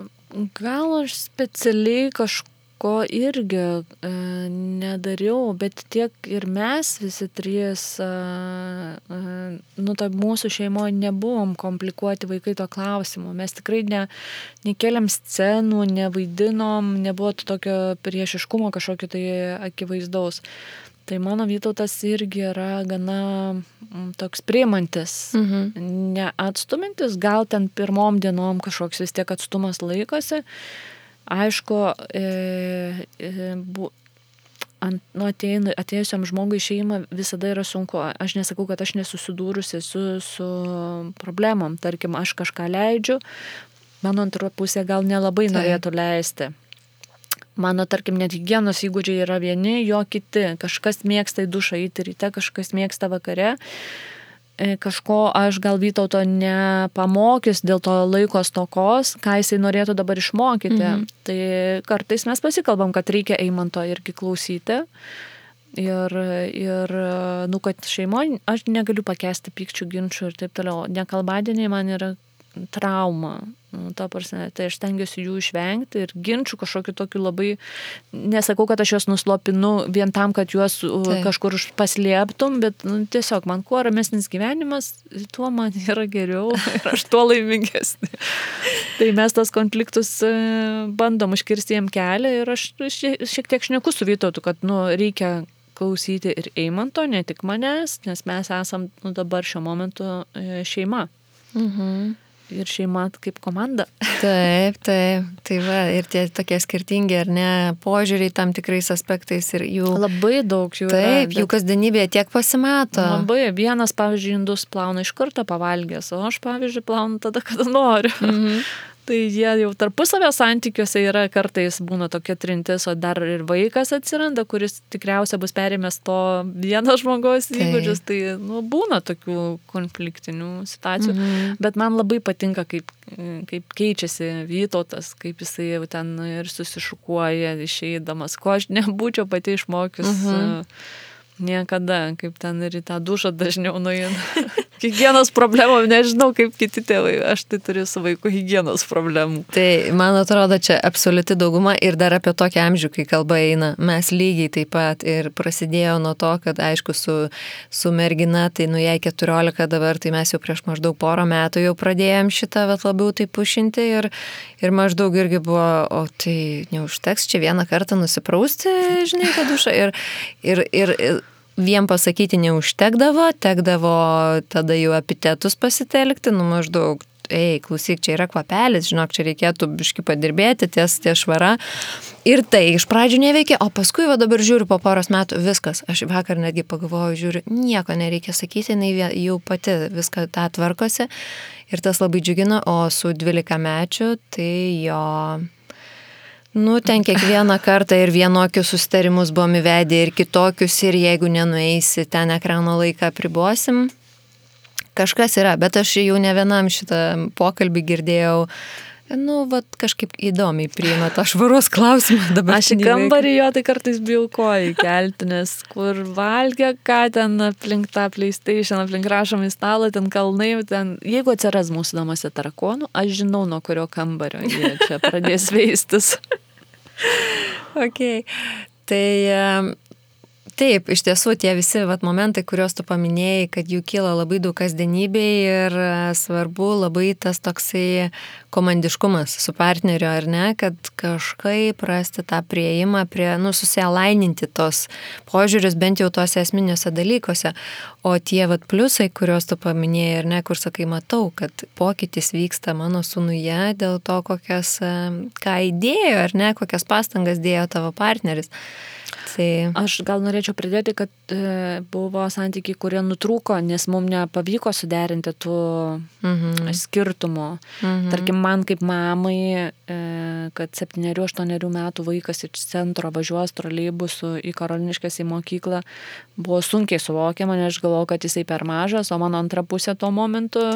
gal aš specialiai ko irgi nedariau, bet tiek ir mes visi trys, mūsų šeimoje nebuvom komplikuoti vaikai to klausimo. Mes tikrai nekėlėm scenų, nevaidinom, nebuvo tokio priešiškumo kažkokio tai akivaizdaus. Tai mano Vytautas irgi yra gana toks priimantis, neatstumintis, gal ten pirmom dienom kažkoks vis tiek atstumas laikosi. Aišku, atėjusiam žmogui į šeimą visada yra sunku. Aš nesakau, kad aš nesusidūrusi su problemom. Tarkim, aš kažką leidžiu, mano antra pusė gal nelabai norėtų leisti. Mano, tarkim, net higienos įgūdžiai yra vieni, jo kiti. Kažkas mėgsta į dušą eiti ryte, kažkas mėgsta vakare. Kažko aš gal Vytauto nepamokys dėl to laiko stokos, ką jisai norėtų dabar išmokyti. Tai kartais mes pasikalbam, kad reikia Eimanto irgi klausyti. Ir kad šeimoje aš negaliu pakęsti pykčių, ginčių ir taip toliau. Nekalbadieniai man yra trauma. Tai aš stengiuosi jų išvengti ir ginčių kažkokiu tokiu labai, nesakau, kad aš juos nuslopinu vien tam, kad juos kažkur paslėptum, bet tiesiog man kuo ramesnis gyvenimas, tuo man yra geriau ir aš tuo laimingesnė. Tai mes tos konfliktus bandom užkirsti jiem kelią ir aš šiek tiek šneku su Vytautu, kad reikia klausyti ir Eimanto, ne tik manęs, nes mes esam dabar šiuo momentu šeima. Ir šeima kaip komanda. Taip. Tai va, ir tie tokie skirtingi, ar ne, požiūriai tam tikrais aspektais ir jų... Labai daug jų yra. Taip, jų kasdienybėje tiek pasimato. Labai, vienas, pavyzdžiui, indus plauna iš karto pavalgęs, o aš, pavyzdžiui, plaunu tada, kada noriu. Tai jie jau tarpusavio santykiuose yra, kartais būna tokia trintis, o dar ir vaikas atsiranda, kuris tikriausiai bus perėmęs to vieno žmogaus įgūdžius. Tai būna tokių konfliktinių situacijų. Bet man labai patinka, kaip keičiasi Vytautas, kaip jisai jau ten ir susišukuoja išeidamas, ko aš nebūčiau pati išmokius niekada, kaip ten ir į tą dušą dažniau nueina. Higienos problemų, nežinau kaip kiti tėvai, aš tai turiu su vaiku higienos problemų. Tai, man atrodo, čia absoliuti dauguma ir dar apie tokią amžių, kai kalba eina. Mes lygiai taip pat ir prasidėjo nuo to, kad aišku su mergina, tai jai 14 dabar, tai mes jau prieš maždaug porą metų jau pradėjom šitą labiau tai pušinti ir maždaug irgi buvo, o tai neužteks čia vieną kartą nusiprausti, žinai, tą dušą ir vien pasakyti neužtekdavo, tekdavo tada jau epitetus pasitelkti, maždaug, klausyk, čia yra kvapelis, žinok, čia reikėtų biškį padirbėti ties švara. Ir tai iš pradžių neveikė, o paskui dabar žiūriu po poros metų, viskas. Aš vakar netgi pagalvoju, žiūriu, nieko nereikia sakyti, jinai jau pati viską tą tvarkosi. Ir tas labai džiugino, o su 12-mečiu, tai jo... ten kiekvieną kartą ir vienokius susitarimus buvom įvedę ir kitokius ir jeigu nenueisi, ten ekrano laiką apribosim. Kažkas yra, bet aš jau ne vienam šitą pokalbį girdėjau, kažkaip įdomiai priima tą švaros klausimą dabar. Aš į kambarį jo tai kartais bijau koją kelti, nes kur valgia, ką ten aplink tą PlayStation, aplink rašomą į stalą, ten kalnai, jeigu atsiras mūsų namuose tarakonų, aš žinau, nuo kurio kambario jie čia pradės veistis. Okay. Tai taip, iš tiesų tie visi momentai, kuriuos tu paminėjai, kad jų kyla labai daug kasdienybėj ir svarbu labai tas toksai komandiškumas su partneriu, ar ne, kad kažkaip rasti tą prieimą susialaininti tos požiūrius bent jau tose esminiuose dalykuose. O tie pliusai, kuriuos tu paminėjai, ar ne, kur sakai, matau, kad pokytis vyksta mano sūnuje dėl to, ką įdėjo, ar ne, kokias pastangas dėjo tavo partneris. Tai... Aš gal norėčiau pridėti, kad buvo santykiai, kurie nutrūko, nes mums nepavyko suderinti tų skirtumų. Tarkim, man kaip mamai, kad 7-8 metų vaikas iš centro važiuos troleibusu į Karoliniškes į mokyklą, buvo sunkiai suvokiama, nes aš galvojau, kad jisai per mažas, o mano antra pusė tuo momentu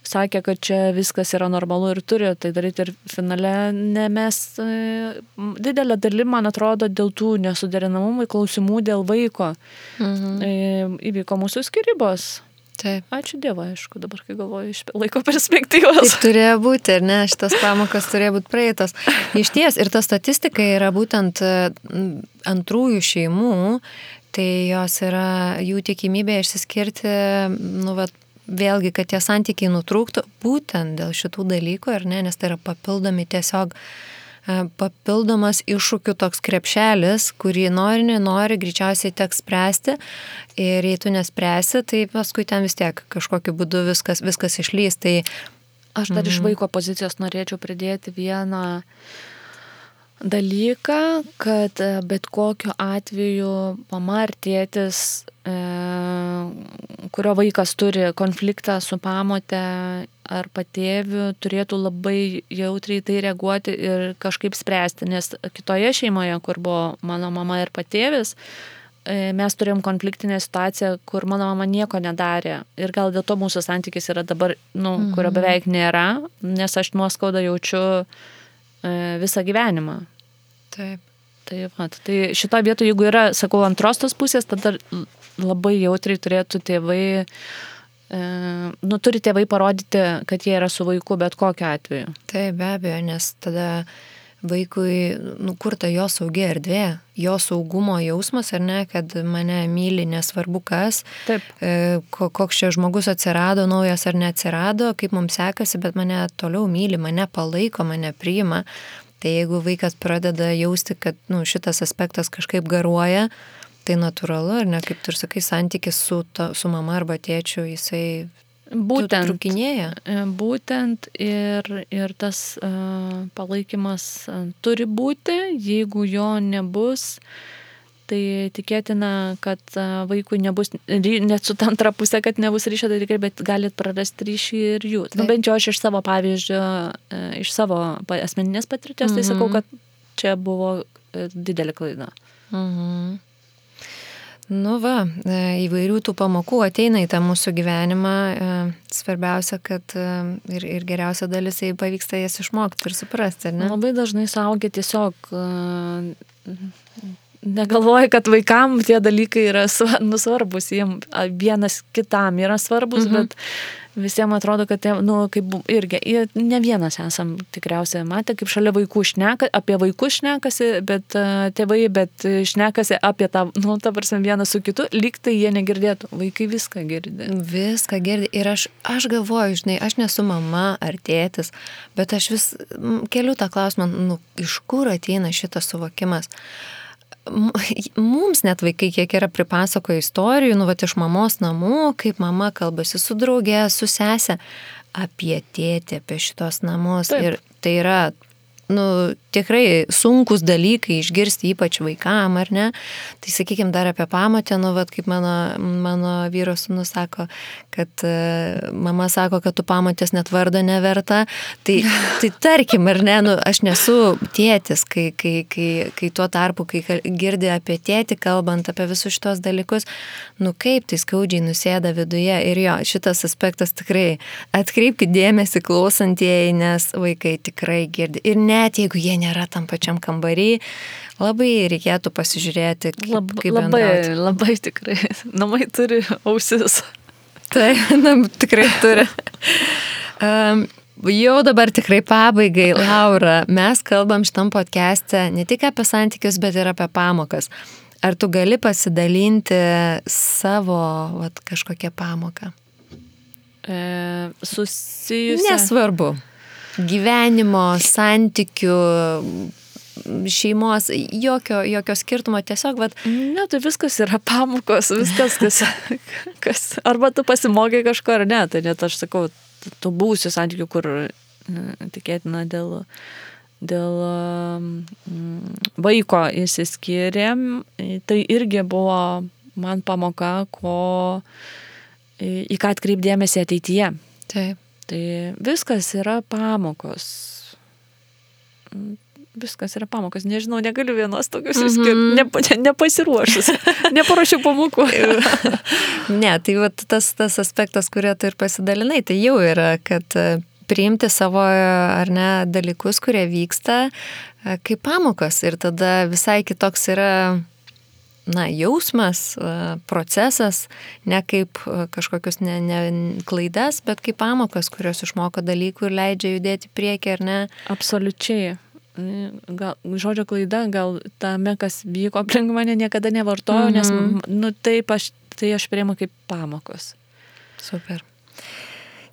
sakė, kad čia viskas yra normalu ir turi tai daryti ir finale mes didelę dalį, man atrodo, dėl tų nesuderinamumų klausimų dėl vaiko įvyko mūsų skyrybos. Taip. Ačiū Dievui, aišku, dabar kai galvoju iš laiko perspektyvos. Taip turėjo būti, ar ne, šitas pamokas turėjo būti praeitos. Iš ties, ir ta statistika yra būtent antrųjų šeimų, tai jos yra jų tikimybė išsiskirti, vėlgi, kad tie santykiai nutrūktų būtent dėl šitų dalykų, ar ne, nes tai yra papildomas iššūkių toks krepšelis, kurį nenori, greičiausiai teks spręsti ir jei tu nespręsi, tai paskui ten vis tiek kažkokiu būdu viskas išlys. Tai aš dar iš vaiko pozicijos norėčiau pridėti vieną dalyką, kad bet kokiu atveju mama ar tėtis, kurio vaikas turi konfliktą su pamote ar patėviu, turėtų labai jautriai tai reaguoti ir kažkaip spręsti, nes kitoje šeimoje, kur buvo mano mama ir patėvis, mes turėjom konfliktinę situaciją, kur mano mama nieko nedarė ir gal dėl to mūsų santykis yra dabar, kurio beveik nėra, nes aš nuoskaudą jaučiu visą gyvenimą. Taip. Tai šitoje vietoje, jeigu yra, sakau, antros tos pusės, tada labai jautriai turėtų tėvai, turi tėvai parodyti, kad jie yra su vaiku bet kokiu atveju. Taip, be abejo, nes tada vaikui, kur ta jo saugi erdvė, jo saugumo jausmas, ar ne, kad mane myli, nesvarbu kas, taip. Koks čia žmogus atsirado, naujas ar neatsirado, kaip mums sekasi, bet mane toliau myli, mane palaiko, mane priima. Tai jeigu vaikas pradeda jausti, kad šitas aspektas kažkaip garuoja, tai natūralu, ar ne, kaip tu ir sakai, santykis su mama arba tėčiu, jisai trukinėja. Būtent ir tas palaikymas turi būti, jeigu jo nebus, tai tikėtina, kad vaikui nebus, net su antra pusė, kad nebus ryšio dalykai, bet galit prarasti ryšį ir jų. Bent jau aš iš savo pavyzdžio, iš savo asmeninės patirties, tai sakau, kad čia buvo didelė klaida. Įvairių tų pamokų ateina į tą mūsų gyvenimą. Svarbiausia, kad ir geriausia dalis, jei pavyksta jas išmokti ir suprasti, ne? Labai dažnai suaugę tiesiog negalvoja, kad vaikam tie dalykai yra svarbus, jiems vienas kitam yra svarbus, bet visiems atrodo, kad kaip irgi, ne vienas esam tikriausiai matę, kaip šalia vaikų apie vaikus šnekasi, bet tėvai, bet šnekasi apie tą, ta prasme, vienas su kitu, lyg tai jie negirdėtų, vaikai viską girdi. Viską girdi ir aš galvoju, žinai, aš nesu mama ar tėtis, bet aš vis keliu tą klausimą, iš kur ateina šitas suvokimas. Mums net vaikai kiek yra pripasakoję istorijų, iš mamos namų, kaip mama kalbasi su draugė, su sese apie tėtį, apie šitos namus. Taip. Ir tai yra tikrai sunkus dalykai išgirsti, ypač vaikam, ar ne? Tai sakykime dar apie pamotę, kaip mano vyro sūnus sako, kad mama sako, kad tu pamotės net vardo neverta. Tai tarkim, ar ne, aš nesu tėtis, kai tuo tarpu, kai girdi apie tėtį, kalbant apie visus šitos dalykus, kaip tai skaudžiai nusėda viduje. Ir jo, šitas aspektas tikrai atkreipkite dėmesį klausantieji, nes vaikai tikrai girdi. Ir net jeigu jie nėra tam pačiam kambarį, labai reikėtų pasižiūrėti, kaip bendrauti. Labai tikrai. Namai turi ausis. Tai, tikrai turi. Jau dabar tikrai pabaigai, Laura, mes kalbam šitam podcast'e ne tik apie santykius, bet ir apie pamokas. Ar tu gali pasidalinti savo kažkokią pamoką? Susijusią. Nesvarbu. Gyvenimo, santykių, šeimos, jokio skirtumo, tiesiog, Ne, tai viskas yra pamokos, viskas, kas arba tu pasimokai kažko ar ne, tai net aš sakau, tu būsi santykių, kur tikėtina dėl vaiko išsiskyrėm, tai irgi buvo man pamoka, į ką atkreipdėmėsi ateityje. Taip. Tai viskas yra pamokos. Viskas yra pamokos. Nežinau, negaliu vienos tokius išskirti. Nepasiruošus. Neparašiau pamokų. Ne, tai tas aspektas, kurio tu ir pasidalinai, tai jau yra, kad priimti savo ar ne dalykus, kurie vyksta kaip pamokos. Ir tada visai kitoks yra jausmas, procesas, ne kaip kažkokius klaidas, bet kaip pamokas, kurios išmoko dalykų ir leidžia judėti priekį, ar ne? Absoliučiai. Gal, žodžio klaida, gal tame, kas vyko aplink mane, niekada nevartojau, nes tai aš priimu kaip pamokos. Super.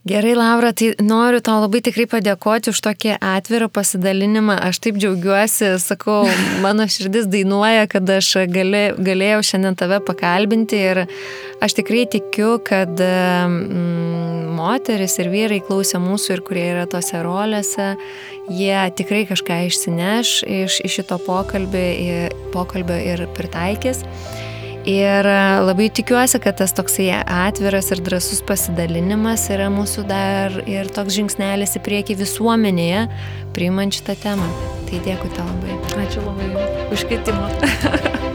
Gerai, Laura, tai noriu tau labai tikrai padėkoti už tokį atvirą pasidalinimą. Aš taip džiaugiuosi, sakau, mano širdis dainuoja, kad aš galėjau šiandien tave pakalbinti ir aš tikrai tikiu, kad moteris ir vyrai klausė mūsų ir kurie yra tose rolėse, jie tikrai kažką išsineš iš šito pokalbio ir pritaikys. Ir labai tikiuosi, kad tas toksai atviras ir drąsus pasidalinimas yra mūsų dar ir toks žingsnelis į priekį visuomenėje, priimant šitą temą. Tai dėkui tau labai. Ačiū labai už kvietimą.